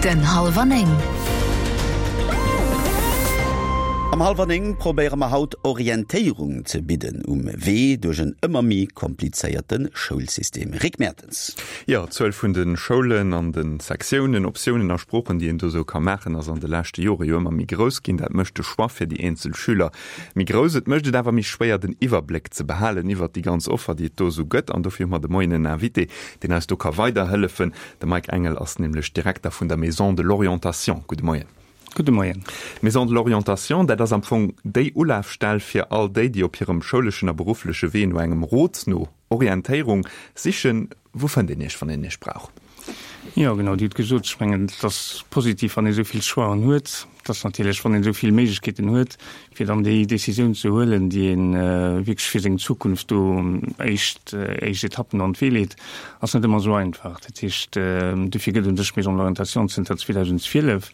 Den Hallwer 9. Am Hallwer 9 probéiere mer haut Orientéierung ze bidden um Wee duerch en ëmmer méi komplizéierte Schoulsystem. Rick Mertens. Jo, d'Zuel vun de Schoulen an de Sektiounen, Optiounen a Sproochen, déi een do sou ka maachen, ass an de leschte Jore jo ëmmer méi grouss ginn. Dat mécht de Choix fir déi eenzel Schüler méi grouss. Et mécht et awer méi schwéier, den Iwwerbléck ze behalen iwwert déi ganz Offer, déi et do sou gëtt. An dofir hu mer de Moien en Invité, deen eis do ka weiderhëllefen. De Mike Engel ass nämlech Direkter vun der Maison de l'Orientation. Gudde Moien. Gudde Moien. D'Maison de l'Orientation, dat ass am Fong déi Ulafstell fir all déi, déi op hirem schouleschen a beruffleche Wee no engem Rot, no Orientéierung sichen. Wou fënnt een Iech, wann een Iech brauch? Jo, genau, Dir hutt gesot, ech mengen, et ass positiv, wann ee esou vill Choixen huet. Et ass natierlech, wann een esou vill Méiglechkeeten huet, fir dann déi Décisioun ze huelen, déi ee wierklech fir seng Zukunft do éischt, éischt Etappen an d'Wee leet, ass net ëmmer esou einfach. Dat heescht, dofir gëtt u sech d'Maison de l'orientation zënter 2012.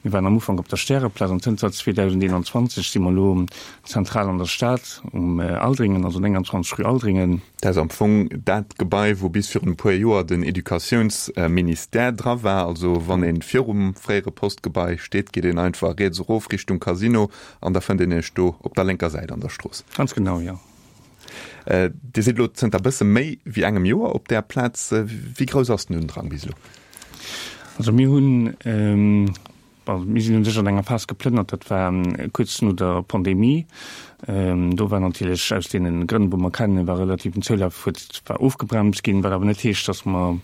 Mir waren am Ufank op der Stäreplaz an zënter 2021 si mer elo zentral an der Stad um Aldringen, also 29 rue Aldringen. Dat ass am Fong dat Gebai, wou bis virun e puer Joer den Educatiounsministère dra war. Also wann ee virum fréiere Postgebai steet, geet een einfach riets erof Richtung Casino an da fënnt een Iech do op der lénker Säit an der Strooss. Ganz genau, jo. Dir sidd elo zënter bësse méi wéi engem Joer op där Plaz. Wéi grouss ass den Undrang bis elo? Also mir hunn, bon, mir sinn u sech an enger Phas geplënnert, dat war kuerz no der Pandemie. Do war natierlech aus deene Grënn, wou mer kennen, war relativ den Zoulaf huet war ofgebremst ginn, wat awer net heescht, datt mer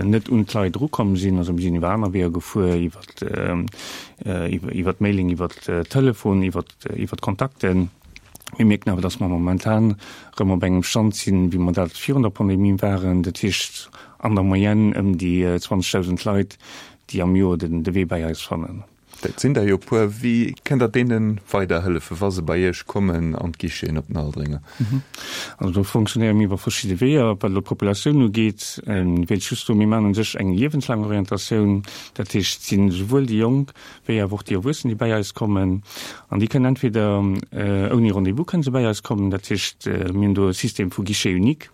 net un d'Leit erukomm sinn. Also mir sinn iwwer aner Weeër gefuer, iwwer iwwer d'Mailing, iwwer Telefon, iwwer iwwer d'Kontakten. Mir mierken awer, dass mer momentan erëm op engem Stand sinn, wéi mer dat virun der Pandemie waren, dat heescht an der Moyenne ëm déi 20.000 Leit, déi am Joer de Wee bäi eis fannen. Dat sinn der jo e puer. Wéi kënnt Der deene weiderhëllefen, wa se bei Iech kommen an d'Guicheten op den Aldringer? Also do fonctionnéiere mir iwwer verschidde Weeër. Wat elo d'Populatioun ugeet, wéilt ech just soen, mir maachen u sech eng liewenslaang Orientatioun. Dat heescht, et sinn esouwuel déi Jonk wéi awer och déi Erwuessen, déi bäi eis kommen. An déi kënnen entweder ouni Rendez-vous kënnen se bäi eis kommen, dat heescht, mir hunn do e System vu Guichet unique,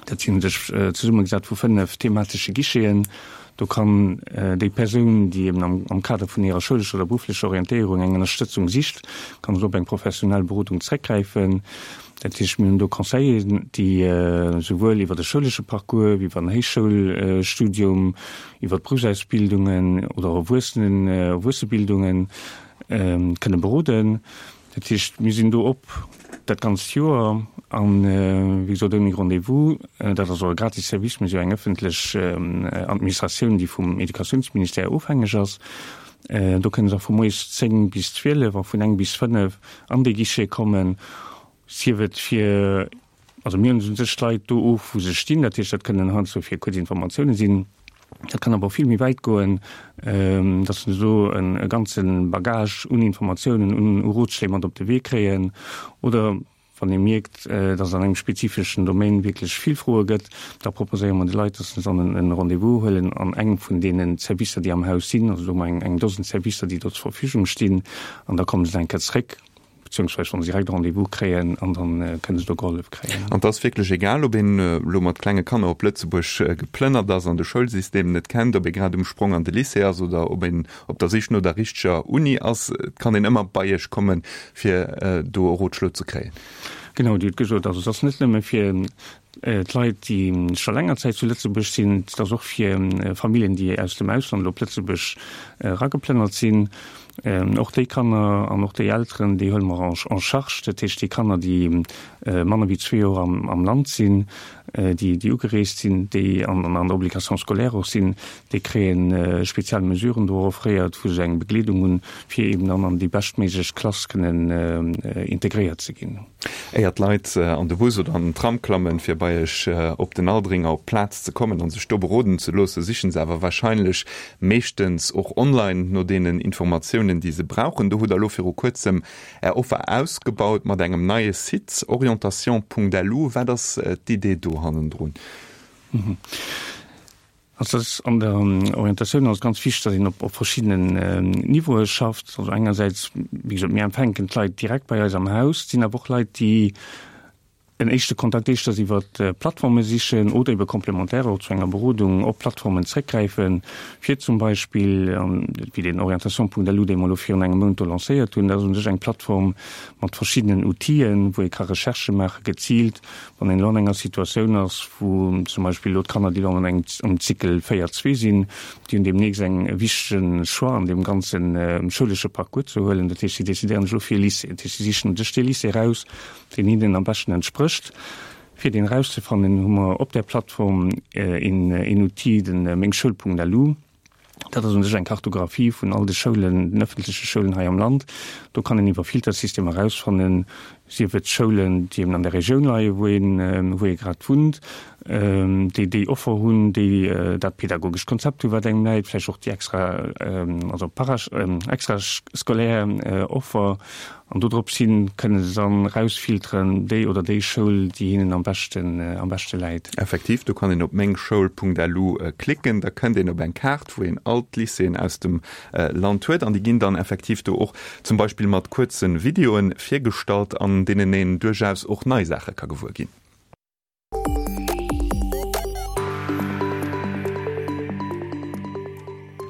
dat sinn u sech zesummegesat vu 5 thematesche Guicheten. Do kann déi Persoun, déi eben am Kader vun hirer schoulescher oder berufflecher Orientéierung eng Ënnerstëtzung sicht, kann do op eng professionell Berodung zréckgräifen. Dat heescht, mir hunn do Conseilleren, déi souwuel iwwer de schoulesche Parcours wéi iwwer en Héichschoulstudium, iwwer d'Beruffsausbildungen oder Erwuessenen, Erwuessebildungen kënne beroden. Dat heescht, mir sinn do op dat ganzt Joer an, wéi gesot, ouni Rendez-vous. Dat ass och e gratis Service. Mir si jo eng ëffentlech Administratioun, déi vum Educatiounsministère ofhängeg ass. Do kënne se och vu moies 10 bis 12 a vun eng bis 5 an dee Guichet kommen, sief et fir Also mir hunn u sech d'Leit do of, wou se stinn. Dat heescht, dat kënnen heiansdo fir kuerz Informatioune sinn. Dat kann awer och vill méi wäit goen, datt se do e ganze Bagage un Informatiounen, un Rotschléi mat op de Wee kréien. Oder wann ee mierkt, datt et an engem spezifeschen Domaine wierklech vill Froe gëtt, da proposéiere mer de Leit, datt se dann e Rendez-vous huelen an engem vun deene Servicer, déi am Haus sinn. Also do hu mer eng Dosen Servicer, déi do zur Verfügung stinn. An da komme se eng Kéier zréck. Beziehungsweise wann se direkt e Rendez-vous kréien an dann kënne se do gehollef kréien. An et ass wierklech egal, ob een elo mat klenge Kanner op Lëtzebuerg geplënnert ass an de Schoulsystem net kennt, ob ee grad um Sprong an de Lycée ass oder ob een op der Sich no der richteger Uni ass, et kann een ëmmer bei Iech kommen, fir do e Rotschlo ze kréien. Genau, Dir hutt gesot, also et ass net nëmme fir d'Leit, déi scho länger Zäit zu Lëtzebuerg sinn, et ass och fir Familljen, déi aus dem Ausland elo op Lëtzebuerg erageplënnert sinn. Och déi Kanner an och déi Elteren, déi huele mer en charge. Dat heescht, déi Kanner, déi manner wéi zwee Joer am Land sinn, déi ugereest sinn, déi an der Obligation scolaire och sinn, déi kréie spezial Mesuren do offréiert, wou se eng Begleedung hunn, fir eben dann an déi beschtméiglech Klass kënnen integréiert ze ginn. Éier d'Leit an de Bus oder an den Tram klammen, fir bei Iech op den Aldringer op d'Plaz ze kommen an sech do beroden ze loossen, sichen se awer warscheinlech meeschtens och online no deenen Informatiounen, déi se brauchen. Do hutt Der elo viru kuerzem Är Offer ausgebaut mat engem neie Site, orientation.lu. Wat ass d'Idee do hannendrun? Also ass an der Orientatioun ass ganz wichteg, datt een op op verschiddenen Niveaue schafft. Also engersäits, wéi gesot, mir empfänken d'Leit direkt bei eis am Haus. Et sinn awer och Leit, déi. En éischte Kontakt éischters iwwer Plattforme sichen oder ebe complémentaire och zu enger Berodung op Plattformen zréckgräifen, fir zum Beispill, wéi den Orientation.lu, dee mer elo virun engem Mount do lancéiert hunn, dat ass u sech eng Plattform mat verschiddenen Outile wou ee ka Recherchë maache geziilt, wann een elo an enger Situatioun ass, wou zum Beispill elo d'Kanner, déi elo an engem am Cycle 4, 2 sinn, déi hunn deemnächst eng e wichtege Choix an deem ganze schoulesche Parcours ze huelen. Dat heescht, si decidéieren sech elo fir e Lycée. Dat heescht, si sichen u sech dee Lycée eraus, deen hinnen am beschten entsprécht. Fir deen erauszefannen, hu mer op där Plattform een Outil, den mengschoul.lu. Dat ass u sech eng Kartographie vun all de Schoulen, den ëffentleche Schoulen hei am Land. Do kann een iwwer Filtersystemer erausfannen, sief et Schoulen, déi eben an der Regioun leien, wou een, wou ee grad wunnt, déi déi Offer hunn, déi dat pedagogescht Konzept hunn, wat engem läit, vläicht och déi extra, also para, extrascolaire Offer. An dodrops hin kënne se dann rausfilteren, déi oder déi Schoul, déi hinnen am beschten, am beschte läit. Effektiv, do kann een op mengschoul.lu klicken, da kënnt een op eng Kaart, wou een all d'Lycéeën aus dem Land huet an déi ginn dann effektiv do och zum Beispill mat kuerze Videoen virgestallt, an deenen een duerchaus och nei Saache ka gewuer ginn.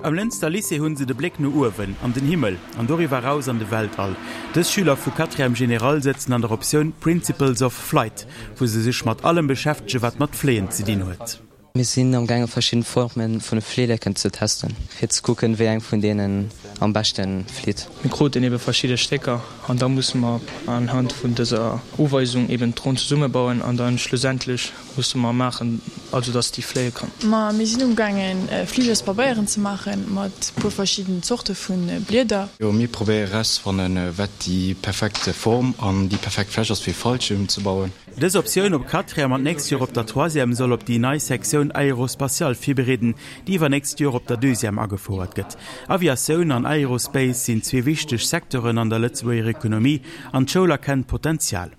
Am Lënster Lycée hunn se de Bléck no uewen, an den Himmel an doriwwer eraus an de Weltall. Dës Schüler vu Quatrième Générale sëtzen an der Optioun Principles of Flight, wou se sech mat allem beschäftege wat mat Fléien ze dinn huet. Mir sinn am gaange verschidden Formen vun Fleeleken ze testen, fir ze kucken wéi eng vun deenen am beschten flitt. Mir kruten eben verschidde Stécker an da musse mer anhand vun dëser Uweisung eben d'Dron zesummebauen an dann schlussendlech musse mer maachen, also dass déi fléie kann. Ma mir sinn umgaangen Fligerspabeieren ze maachen mat puer verschidden Zorte vun Blieder. Jo, mir probéiere erauszefannen, wat déi perfekt Form an déi perfekt Fläch ass fir Fallschirm ze bauen. Dës Optioun op Quatrième an d'nächst Joer op der Troisième soll op déi nei Sektioun Aérospatiale virbereeden, déi iwwernächst Joer op der Deuxième agefouert gëtt. Aviatioun an Aerospace sinn zwee wichteg Secteuren an der Lëtzebuerger Ekonomie an d'Schoul erkennt d'Potenzial.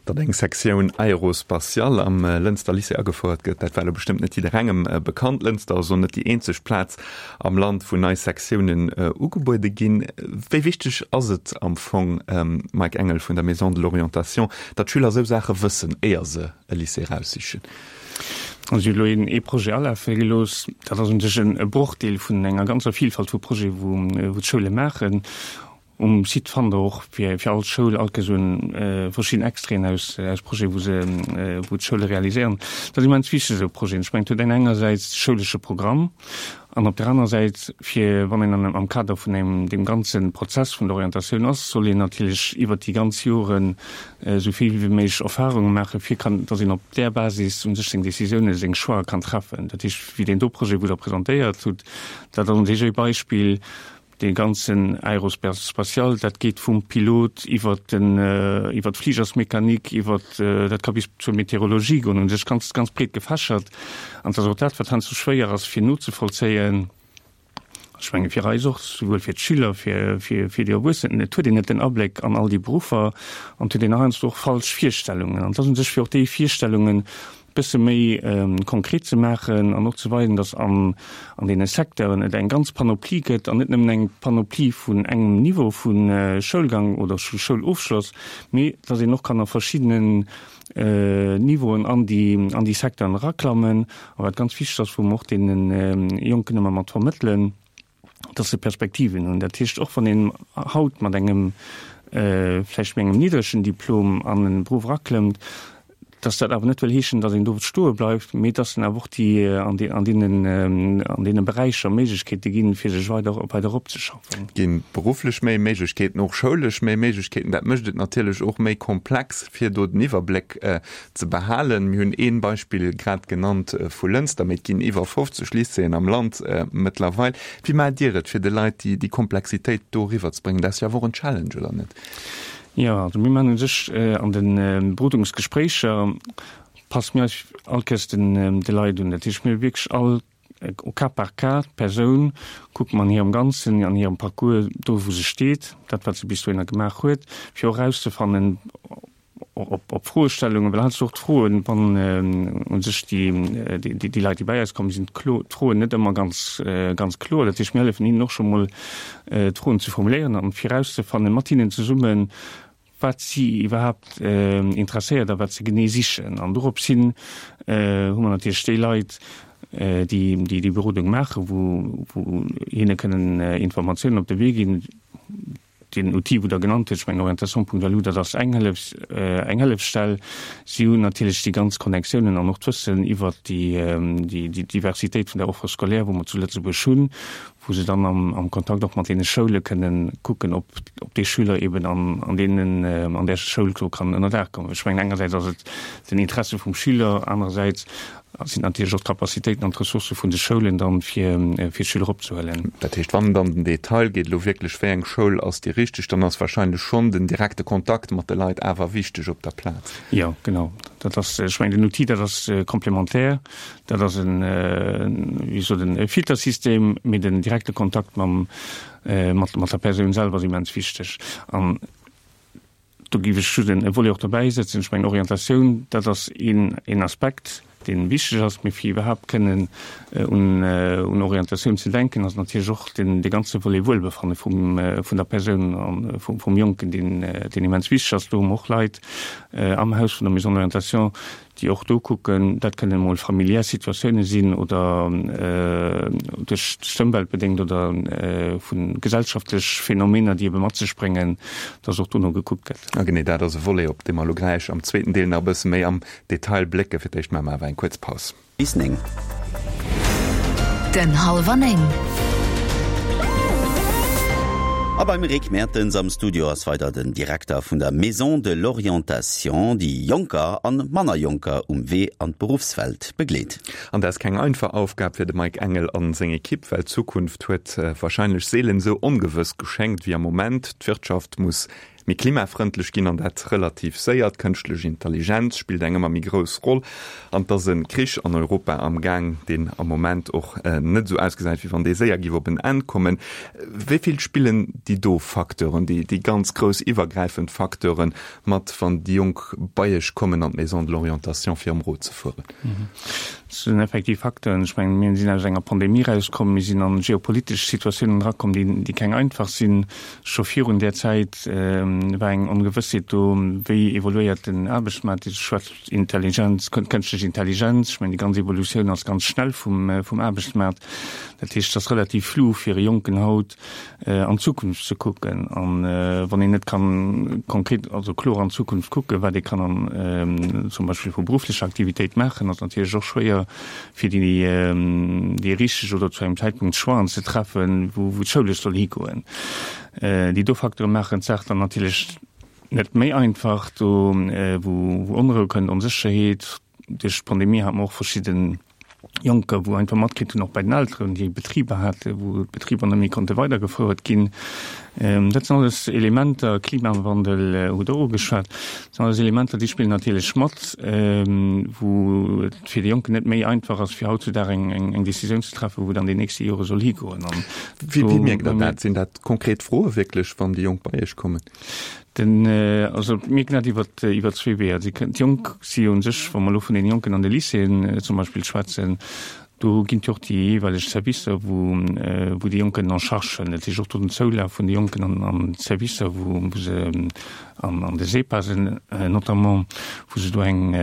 Datt eng Sektioun Aérospatiale am Lënster Lycée agefouert gëtt, dat war elo bestëmmt net jidderengem bekannt. Lënster ass och net déi eenzeg Plaz am Land, wou nei Sektiounen ugebuede ginn. Wéi wichteg ass et am Fong, Mike Engel vun der Maison de l'Orientation, datt d'Schüler esou Saache wëssen, éier se e Lycée eraussichen? Also elo een ee Projet alafe gelooss. Dat ass u sech e Brochdeel vun enger ganzer Vielfalt vu Projete wou d'Schoule maachen. Um Site fannt der och fir fir all Schoul all Kéiers un verschidden Extraiten aus aus Projeten, wou se wou d'Schoule realiséieren. Dat ass immens wichteg esou Projeten. Ech mengen, et huet een engersäits de schoulesche Programm an op der anerer Säit, fir wann een an am Kader vun engem deem ganze Prozess vun der Orientatioun ass, soll een natierlech iwwert déi ganz Joren esou vill wéi méiglech Erfahrunge maachen, fir kann dass een op där Basis u sech seng Décisiounen, seng Choixë kann treffen. Dat heescht, wéi deen do Projet, wou Der presentéiert hutt, dat ass u sech e Beispill, Dee ganzen Aérospatial, dat geet vum Pilot iwwer den, iwwer d'Fligersmechanik, iwwer, dat ka bis zur Meteorologie goen, u sech ganz, ganz breet gefächert. An et ass och dat, wat heiansdo schwéier ass fir nozevollzéien, ech menge fir eis och, souwuel fir d'Schüler, fir, fir, fir déi Erwuessen, et huet een net den Abléck an all déi Beruffer an et huet een heiansdo och falsch Virstellungen. An et ass u sech fir och déi Virstellungen bësse méi konkret ze maachen an och ze weisen, dass an an deene Secteuren et eng ganz Panoplie gëtt an net nëmmen eng Panoplie vun engem Niveau vu Schoulgang oder vu Schoulofschloss, mee dass een och kann a verschiddenen Niveauen an déi an déi Secteuren eraklammen. A wat ganz wichteg ass, wou mer och deene Jonken ëmmer mat vermëttelen, dass se Perspektiven hunn. Dat heescht, och wann een haut mat engem vläicht méi engem niddregen Diplom an en Beruff eraklëmmt, dass dat awer net wëll heeschen, dass een do stoe bleift, mee dass en awer och déi an de an deenen an deene Beräicher Méiglechkeete ginn, fir sech weider weider eropzeschaffen. Et gi berufflech méi Méiglechkeeten, och schoulesch méi Méiglechkeeten. Dat mécht et natierlech och méi komplex, fir do den Iwwerbléck ze behalen. Mir hunn ee Beispill grad genannt vu Lënster, mee et ginn iwwer 50 Lycéeën am Land mëttlerweil. Wéi maacht Dir et, fir de Leit déi Komplexitéit do eriwwerzebréngen? Dat ass jo awer och en Challenge, oder net? Jo, also mir maachen u sech an de Berodungsgespréicher passe mir eis all Kéiers de Leit un. Dat heescht, mir hu wierklech all au cas par cas d'Persoun kucke mer an hirem Ganzen, an hirem Parcours, do wou se steet, dat wat se bis dohinner gemaach huet, fir och erauszefannen, op Froestellungen, well heiansdo och d'Froen, wann u sech déi, déi Leit, déi bei eis kommen, sinn d'Froen net ëmmer ganz, ganz kloer. Dat heescht, mir hëllefen hinnen och scho mol, d'Froen ze formuléieren an virauszefannen, mat hinnen zesummen, wat si iwwerhaapt interesséiert a wat se genee sichen. An dorops hin hu mer natierlech déi Leit, déi déi Berodung maachen, wou hinne kënnen Informatiounen op de Wee ginn. Deen Outil, wou Der genannt hutt, ech mengen orientation.lu, dat ass eng Hëllefs, eng Hëllefsstell. Si hunn natierlech déi ganz Connectiounen an och d'Wëssen iwwert déi, déi Diversitéit vun der Offre scolaire, wou mer zu Lëtzebuerg hunn, wou se dann am, am Kontakt och mat deene Schoule kënnen kucken, ob, ob dee Schüler eben an, an deenen, an där Schoul do kann ënnerdaach kommen. Ech mengen, engersäits ass et den Interesse vum Schüler, anerersäits sinn natierlech och d'Capacitéiten an d'Ressourcë vun de Schoulen dann, fir fir d'Schüler opzehuelen. Dat heescht, wann et an den Detail geet, elo wierklech, wéi eng Schoul ass déi richteg, dann ass wahrscheinlech schonn den direkte Kontakt mat de Leit awer wichteg op der Plaz. Jo, genau. Dat ass, ech mengen, den Outil, dat ass komplementär. Dat ass en, wéi sot en, e Filtersystem, mee den direkte Kontakt mam, mat mat der Persoun selwer ass immens wichteg. An Do géif ech just e Volet och dobäisetzen. Ech mengen, Orientatioun, dat ass een Aspekt, dee wichteg ass. Mee fir iwwerhaapt kënnen un Orientatioun ze denken, ass natierlech och dee ganze Volet Wuelbefanne vum der Persoun a vum Jonken, deen immens wichteg ass. Do hu mer och Leit am Haus vun der Maison de l'orientation, déi och do kucken, dat kënnen emol familiär Situatioune sinn oder duerch d'Ëmwelt bedéngt oder vu gesellschaftlech Phänomener, déi ebe mat sech bréngen, dass och dono gekuckt gëtt. A genee dat ass e Volet, op dee mer elo gläich am zweeten Deel nach e bësse méi am Detail blécken. Fir d'éischt maache mer awer eng kuerz Paus. Bis 9. Den Hallwer 9. A beim Rick Mertens am Studio ass weider den Direkter vun der Maison de l'Orientation, déi Jonker an manner Jonker um Wee an d'Beruffswelt begleet. An dat ass keng einfach Aufgab fir de Mike Engel an seng Ekipp, well d'Zukunft huet warscheinlech seelen esou ongewëss geschéngt wéi am Moment. D'Wirtschaft muss méi klimafrëndlech ginn an dat relativ séier. D'kënschtlech Intelligenz spillt eng ëmmer méi grouss Roll an et ass e Krich an Europa am Gaang, deen am Moment och net esou ausgesäit, wéi wann dee séier géif op en Enn kommen. Wéi vill spillen déi do Facteuren, déi ganz grouss iwwergräifend Facteuren mat, wann déi Jonk bei Iech kommen an d'Maison de l'orientation fir ëm Rot ze fueren? Dat sinn effektiv Facteuren. Ech mengen, mir sinn aus enger Pandemie erauskomm, mir sinn an geopolitesch Situatiounen erakomm, déi keng einfach sinn. Scho virun där Zäit war eng Ongewëssheet do, wéi evoluéiert den Aarbechtsmaart, Dir schwätzt Intelligenz, kënschtlech Intelligenz, ech mengen déi ganz Evolutioun ass ganz schnell vum Aarbechtsmaart. Dat heescht, et ass relativ flou fir e Jonken haut an d'Zukunft ze kucken. A wann een net kann konkret, also kloer an d'Zukunft kucken, wat ee kann an zum Beispill vu berufflecher Aktivitéit maachen, ass natierlech och schwéier fir déi richteg oder zu engem Zäitpunkt Choixen ze treffen, wou d'Schoulesch soll higoen. Déi do Facteure maachen d'Saach dann natierlech net méi einfach, do wou Onrou kënnt, Onsécherheet. Duerch d'Pandemie hate mer och verschidde Jonker, wou einfach matkritt hunn, och bei den Elteren, déi Betriber haten, wou d'Betriber net méi konnte weidergefouert ginn. Dat sinn alles Elementer, Klimawandel hutt Der ugeschwat, dat sinn alles Elementer, déi spillen natierlech mat, wou et fir de Jonken net méi einfach ass, fir hautzudag eng Décisioun ze treffen, wou et an den nächste Jore soll higoen. Wéi mierkt Der dat? Sinn dat konkret Froe wierklech, wann déi Jonk bei Iech kommen? Den, also mir mierken dat iwwer, iwwer zwee Weeër. D'Jonk si jo u sech, wa mer elo vun den Jonken an de Lycéeën zum Beispill schwätzen, Do ginn et jo och déi jeeweileg Servicer, wou, wou déi Jonk kënnen en charge huelen. Dat heescht och do den Zoulaf vun de Jonken an, an d'Servicer, wou, wou se an, an de SEPASen notamment, wou se do eng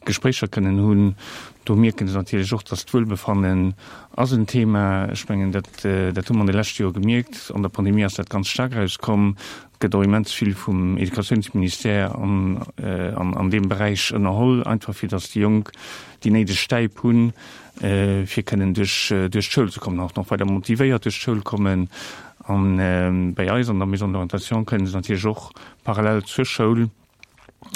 Gespréicher kënnen hunn. Do mierke se natierlech och, dass d'Wuelbefannen ass en Thema. Ech mengen, dat, dat hu mer an de leschte Jore gemierkt. An der Pandemie ass dat ganz staark erauskomm. Et gëtt och immens vill vum Educatiounsministère an, an, an deem Beräich ënnerholl, einfach fir dass déi Jonk déi néideg Stäip hunn, fir kënnen duerch duerch d'Schoul ze kommen, och nach weider motivéiert duerch d'Schoul kommen. An bäi eis an der Maison de l'orientation kënnen se natierlech och parallel zur Schoul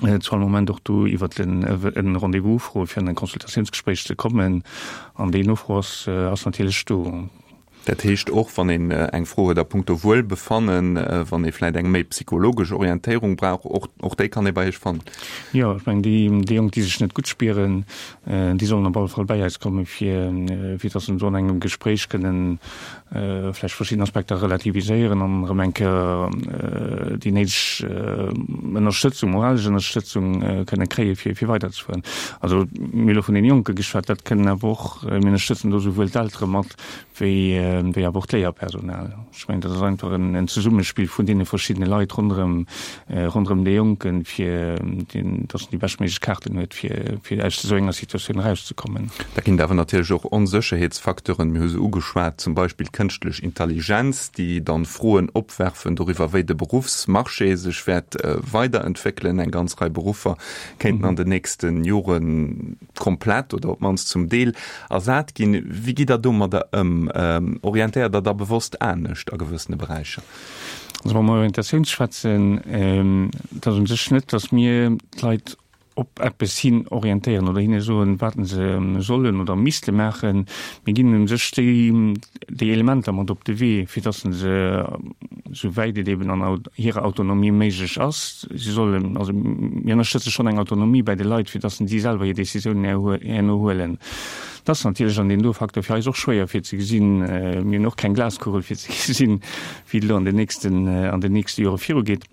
zu all Moment och do iwwert en e Rendez-vous ufroen, fir an e Consultatiounsgespréich ze kommen. An déi Nofro ass ass natierlech do. Dat heescht och, wann een eng Fro huet a punkto Wuelbefannen, wann ee vläit eng méi psychologesch Orientéierung brauch, och, och déi kann ee bei Iech fannen? Jo, ech mengen, déi, déi Jonk, déi sech net gutt spieren, déi sollen op alle Fall bäi eis kommen, fir, fir dass se do an engem Gespréich kënnen vläicht verschidden Aspekter relativiséieren an erëm eng Kéier déi néideg Ënnerstëtzung, moralesch Ënnerstëtzung kënne kréien, fir, fir weiderzefueren. Also, mir hu elo vun deene Jonke geschwat, dat kënnen awer och, mir ënnerstëtzen do souwuel d'Eltere mat, wéi. wéi awer och d'Léierpersonal. Ech mengen, dat ass einfach en Zesummespill vun deene verschiddene Leit ronderëm, ronderëm dee Jonken, fir datt en déi beschtméiglech Kaarten huet, fir, fir aus esou enger Situatioun erauszekommen. Da ginn et awer natierlech och Onsécherheetsfacteuren. Mir hu se ugeschwat, zum Beispill d'kënschtlech Intelligenz, déi dann Froen opwerfen doriwwer, wéi de Beruffsmarché sech wäert weiderentwéckelen. Eng ganz Rei Beruffer kéinten an den nächste Jore komplett oder op d'mannst zum Deel ersat ginn. Wéi gitt Der domadder ëm? Orientéiert Der da bewosst anescht a gewëssene Beräicher? Also wa mer Orientatioun schwätzen, et ass u sech net, datt mir d'Leit op eppes hin orientéieren oder hinne soen, wat se sollen oder misste maachen. Mir ginn u sech déi, déi Elementer mat op de Wee, fir datt se, esou wäit et eben an hirer Autonomie méiglech ass, si sollen, also mir ënnerstëtze schonn eng Autonomie bäi de Leit, fir datt si selwer hir Décisiounen herno huelen. Dat ass natierlech an deem do Facteur fir eis och schwéier fir ze gesinn. Mir hunn och keng Glaskugel fir ze gesinn, wéi et elo an den nächsten, an den nächste Jore virugeet.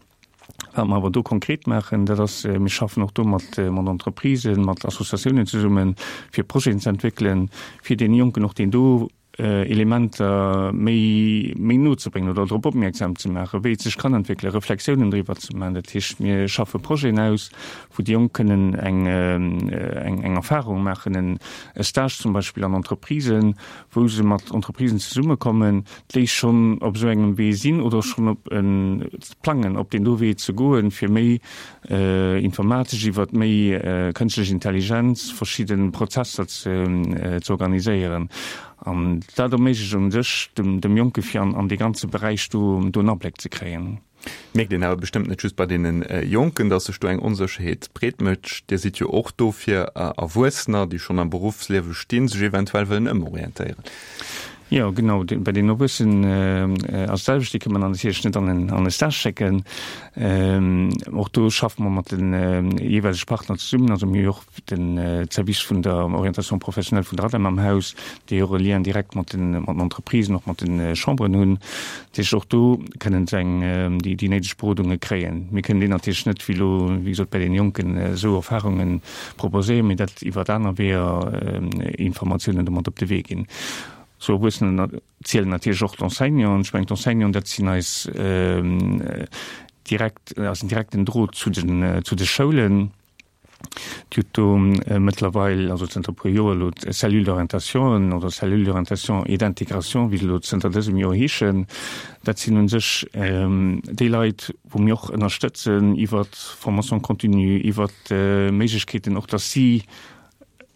Wat mer awer do konkret maachen, dat ass, mir schaffen och do mat, mat Entreprisen, mat Associatiounen zesummen, fir Projeten ze entwéckelen, fir deene Jonken och deen do Elementer méi, méi no ze bréngen oder drop opmierksam ze maachen, wéi et sech kann entwéckelen, Reflexiounen driwwer ze maachen. Dat heescht, mir schaffe Projeten aus, wou déi Jonk kënnen eng, eng, eng Erfahrung maachen, en e Stage zum Beispill an Entreprisen, wou se mat Entreprisen zesummekommen, déi schonn op esou engem Wee sinn oder schonn op e plangen, op deen do Wee ze goen, fir méi informatesch, iwwert méi kënschtlech Intelligenz verschidde Prozesser ze organiséieren. An dat erméiglecht u sech dem Jonke fir an dee ganze Beräich do en Abléck ze kréien. Mierkt een awer bestëmmt net just bei deene Jonken, datt sech do eng Onsécherheet breet mécht. Dir sidd jo och do fir Erwuessener, déi schonn am Beruffsliewe stinn, sech eventuell wëllen ëmorientéieren. Jo, genau. Bei den Erwuessenen ass et d'selwecht. Déi kënne mer dann natierlech net an e Stage schécken. Och do schaffe mer mat de jeeweilege Partner zesummen. Also mir hu jo och de Service vun der Orientation professionnelle vun der ADEM am Haus, déi och e Lien direkt mat den Entreprisen, och mat de Chamberen hunn. Dat heescht, och do kënnen se eng, déi néideg Berodunge kréien. Mir kënnen déi natierlech net, wéi elo, wéi gesot, bei deene Jonken esou Erfahrunge proposéieren, mee dat iwwert aner Weeër Informatiounen do mat op de Wee ginn. Zu Erwuessenen zielen natierlech och d'Enseignanten. Ech mengen, d'Enseignanten, dat sinn eis direkt, eisen direkten Drot zu den, zu de Schoulen. Dir hutt do mëttlerweil, also zënter e puer Joer elo, d'Cellule d'orientation oder Cellule d'orientation et d'intégration, wéi se elo zënter dësem Joer heeschen. Dat sinn u sech déi Leit, wou mir och ënnerstëtzen iwwert d'Formation continue, iwwert d'Méiglechkeeten och, dass si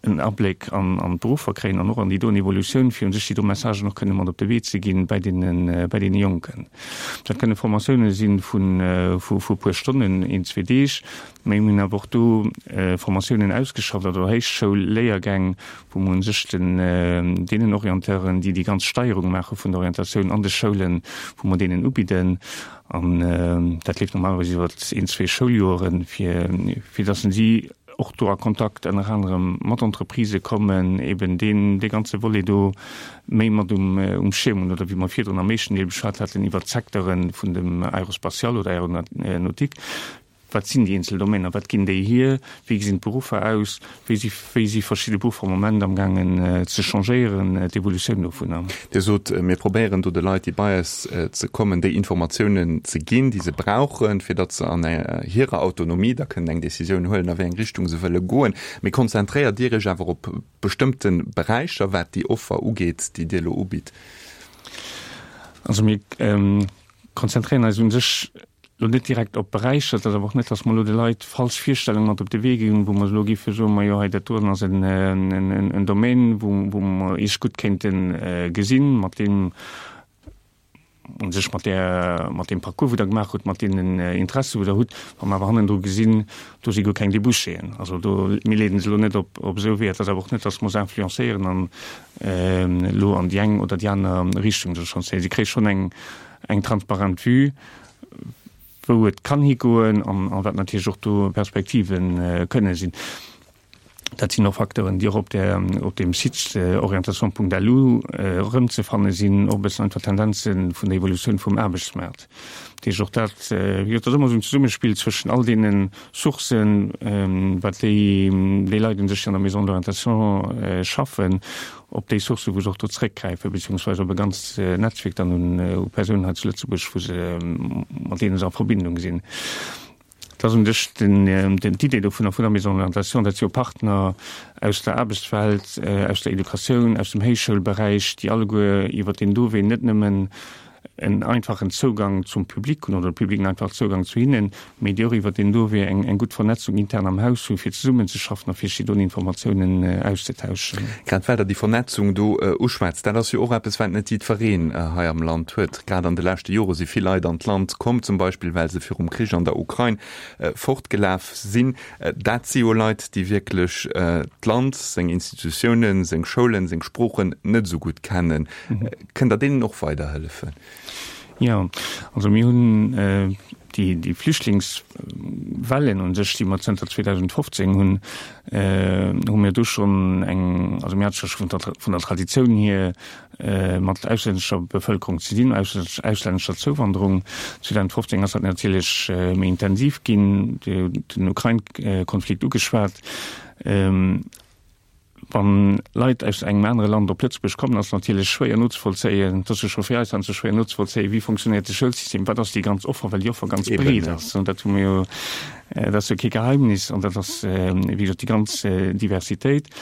en Abléck an d'Beruffer kréien an och an déi doen Evolutioun, fir u sech déi do Messagen och kënne mat op de Wee ze ginn bäi deene, bäi deene Jonken. Dat kënne Formatioune si vun, vu e puer Stonnen, een, zwee Deeg, mä mir hunn awer och do Formatiounen ausgeschafft oder Héichschoulléiergäng, wou mer u sech den, deenen Orienteuren, déi déi ganz Steierung maache vun der Orientatioun an de Schoulen, wou mer deenen ubidden. An dat leeft normalerweis iwwer een, zwee Schouljoeren, fir, fir datt si och do a Kontakt ënner anerem mat Entreprisë kommen, eben deen, dee ganze Volet do méi mat um, um Schierm hunn, oder wéi mer virdrun am éischten Deel beschwat haten iwwert d'Secteure vun dem Aérospatial oder Aéronautique. Wat sinn déi eenzel Domainer, wat ginn déi hier, wéi gesinn d'Beruffer aus, wéi si, wéi si verschidde Beruffer am Moment amgaangen ze changéieren, d'Evolutioun dovunner. Dir sot, mir probéieren do de Leit, déi bei eis ze kommen, déi Informatiounen ze ginn, déi se brauchen, fir datt se an hirer Autonomie da kënnen eng Décisioun huelen, a wéi eng Richtung se wëlle goen. Mee konzentréiert Dir Iech awer op bestëmmte Beräicher, wat déi Offer ugeet, déi Dir elo ubitt? Also mir konzentréieren eis u sech Lo net direkt op Beräicher, et ass awer och net, datt mer elo de Leit falsch Virstellunge mat op de Wee ginn, wou mer elo géife soen, majo hei dat doen ass en Domaine, wou wou mer Iech gutt kéinte gesinn, mat deem u sech mat där mat deem Parcours wou Der gemaach hutt, mat deenen Interesse wou Der hutt, wa mer awer hannendru gesinn, do si guer keng Débouchéen. Also do, mir leeden se elo net op op esou Weeër. Et ass awer och net, datt mer se influencéieren an elo an déi eng oder déi aner Richtung. Si kréie schonn eng eng transparent Vue, wou et kann higoen an wat natierlech och do Perspektive kënne sinn. Dat sinn och Facteuren, déi och op där, op deem Site orientation.lu erëmzefanne sinn, och e bëssen einfach Tendenze vun der Evolutioun vum Aarbechtsmaart. Dat heescht, och dat, wéi gesot, dat ass ëmmer esou en Zesummespill zwëschen all deene Sourcen, wat déi, déi Leit un sech, déi an der Maison de l'orientation schaffen, op déi Sourcen, wou se och do zréckgräifen, beziehungsweise op e ganzt Netzwierk dann un u Persounen hei zu Lëtzebuerg, wou se, mat deene se a Verbindung sinn. Dat ass un sech d'Idee dovunner, vun der Maison de l'orientation, dat si jo Partner aus der Aarbechtswelt, aus der Educatioun, aus dem Héichschoulberäich, déi alleguer iwwert deen do Wee net nëmmen en einfachen Zougang zum Public hunn oder de Public en einfachen Zougang zu hinnen, mee déi och iwwert deen do Wee eng gutt Vernetzung intern am Haus hu fir zesummenzeschaffen a fir sech do Informatiounen auszetauschen. Grad well Der déi Vernetzung do uschwätzt, dat ass jo och eppes, wat net jiddwereen hei am Land huet. Grad an de leschte Jore si vill Leit an d'Land komm, zum Beispill well se virum Krich an der Ukrain fortgelaf sinn. Dat si jo Leit, déi wierklech d'Land, seng Institutiounen, seng Schoulen, seng Sproochen net esou gutt kennen. Kënnt Der deenen och weiderhëllefen? Jo, also mir hunn déi Flüchtlingswellen un sech, déi mer zënter 2015 hunn, hu mir do schonn eng, also mir hate scho vun der Traditioun hier mat auslännescher Bevëlkerung ze dinn, auslännescher Zouwanderung. 2015 ass dat natierlech méi intensiv ginn, Dir hutt den Ukrain-Konflikt ugeschwat. Wann Leit aus engem anere Land op Lëtzebuerg kommen, ass natierlech schwéier nozevollzéien, et ass jo scho fir eis heiansdo schwéier nozevollzéien, wéi funktionéiert de Schoulsystem, wat ass déi ganz Offer, well déi Offer ganz breet ass. An dat hu mir jo, dat ass jo kee Geheimnis an dat ass, wéi gesot, déi ganz Diversitéit.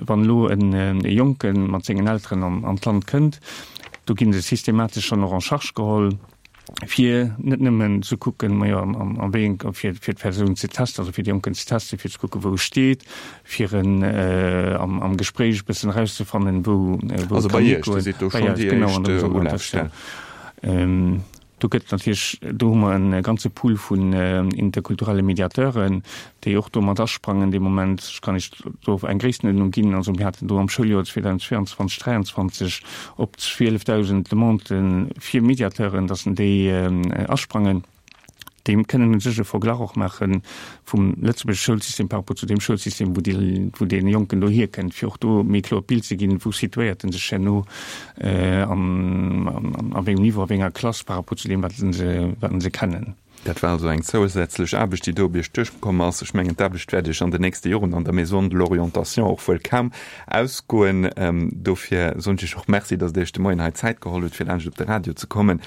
Wann elo e Jonke mat sengen Elteren an d'Land kënnt, do gi se systematesch schonn och en charge geholl, fir net nëmmen ze kucken, majo, a wéi eng, fir d'Persoun ze testen, also fir de Jonken ze testen, fir ze kucken, wou e steet, fir en am Gespréich e bëssen erauszefannen, wou e kann higoen. Bei eis, genau, an der Orientatioun. Do gëtt natierlech, do hu mer e ganze Pool vun interkulturelle Mediateuren, déi och do mat asprangen dee Moment. Ech kann Iech do eng Gréisstenuerdnung ginn. Also mir haten do am Schouljoer 2022, 2023 op 12.000 Demandë fir Mediateuren, datt déi asprangen. Déi kënnen u sech e Verglach och maache vum lëtzebuergesche Schoulsystem par rapport zu deem Schoulsystem, wou déi, wou dee Jonken do hierkënnt, fir och do méi kloer d'Bild ze ginn, wou situéiert en sech herno an a wéi engem Niveau, a wéi enger Klass par rapport zu deem, wat se, wat se kennen. Dat war also eng zousätzlech Aarbecht, déi do op Iech duerchkomm ass. Ech mengen, d'Aarbecht wäert Iech an den nächste Joren an der Maison de l'Orientation och wuel kaum ausgoen. Dofir soen ech Iech och Merci, datt Der Iech de Moien hei Zäit geholl hutt, fir laanscht op de Radio ze kommen.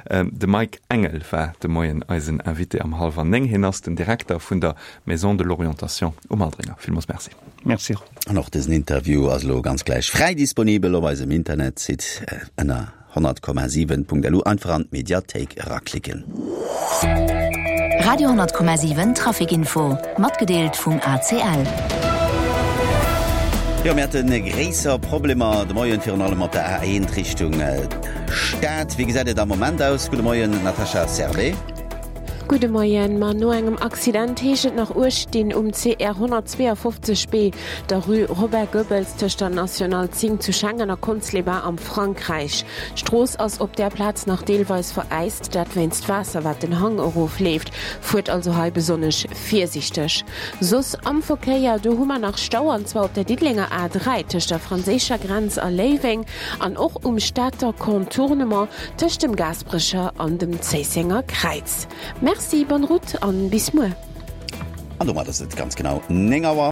De Mike Engel war de Moien eisen Invité am hallwer 9. Hien ass den Direkter vun der Maison de l'Orientation um Aldringer. Villmools Merci. Merci. An och dësen Interview ass elo ganz gläich fräi disponibel op eisem Internetsite ënner 100,7.lu. Einfach an d'Mediathéik eraklicken. Radio 10,7 Traficinfo, matgedeelt vum ACL. Jo, mir hate gréisser Problemer de Moien, virun allem op der A1 Richtung Stad. Wéi gesäit et am Moment aus? Gudde Moien, Natascha Servais. Gudde Moien. Ma no engem Accident heescht et nach Uecht dinn um CR 152 B, der Rue Robert Goebbels tëscht der National 10 zu Schengen a Conques-les-Bains am Frankräich. D'Strooss ass op där Plaz nach deelweis veräist, dat wéinst Waasser wat den Hang erof leeft. Fuert also hei besonnesch virsiichteg. Soss am Verkéier, do hu mer nach Stau an zwar op der Diddelenger A3 tëscht der franséischer Grenz a Léiweng an och um Stater Contournement tëscht dem Gaasperecher an dem Zéissenger Kräiz. Merci, bonne route an bis muer. An domat ass et ganz genau 9 Auer.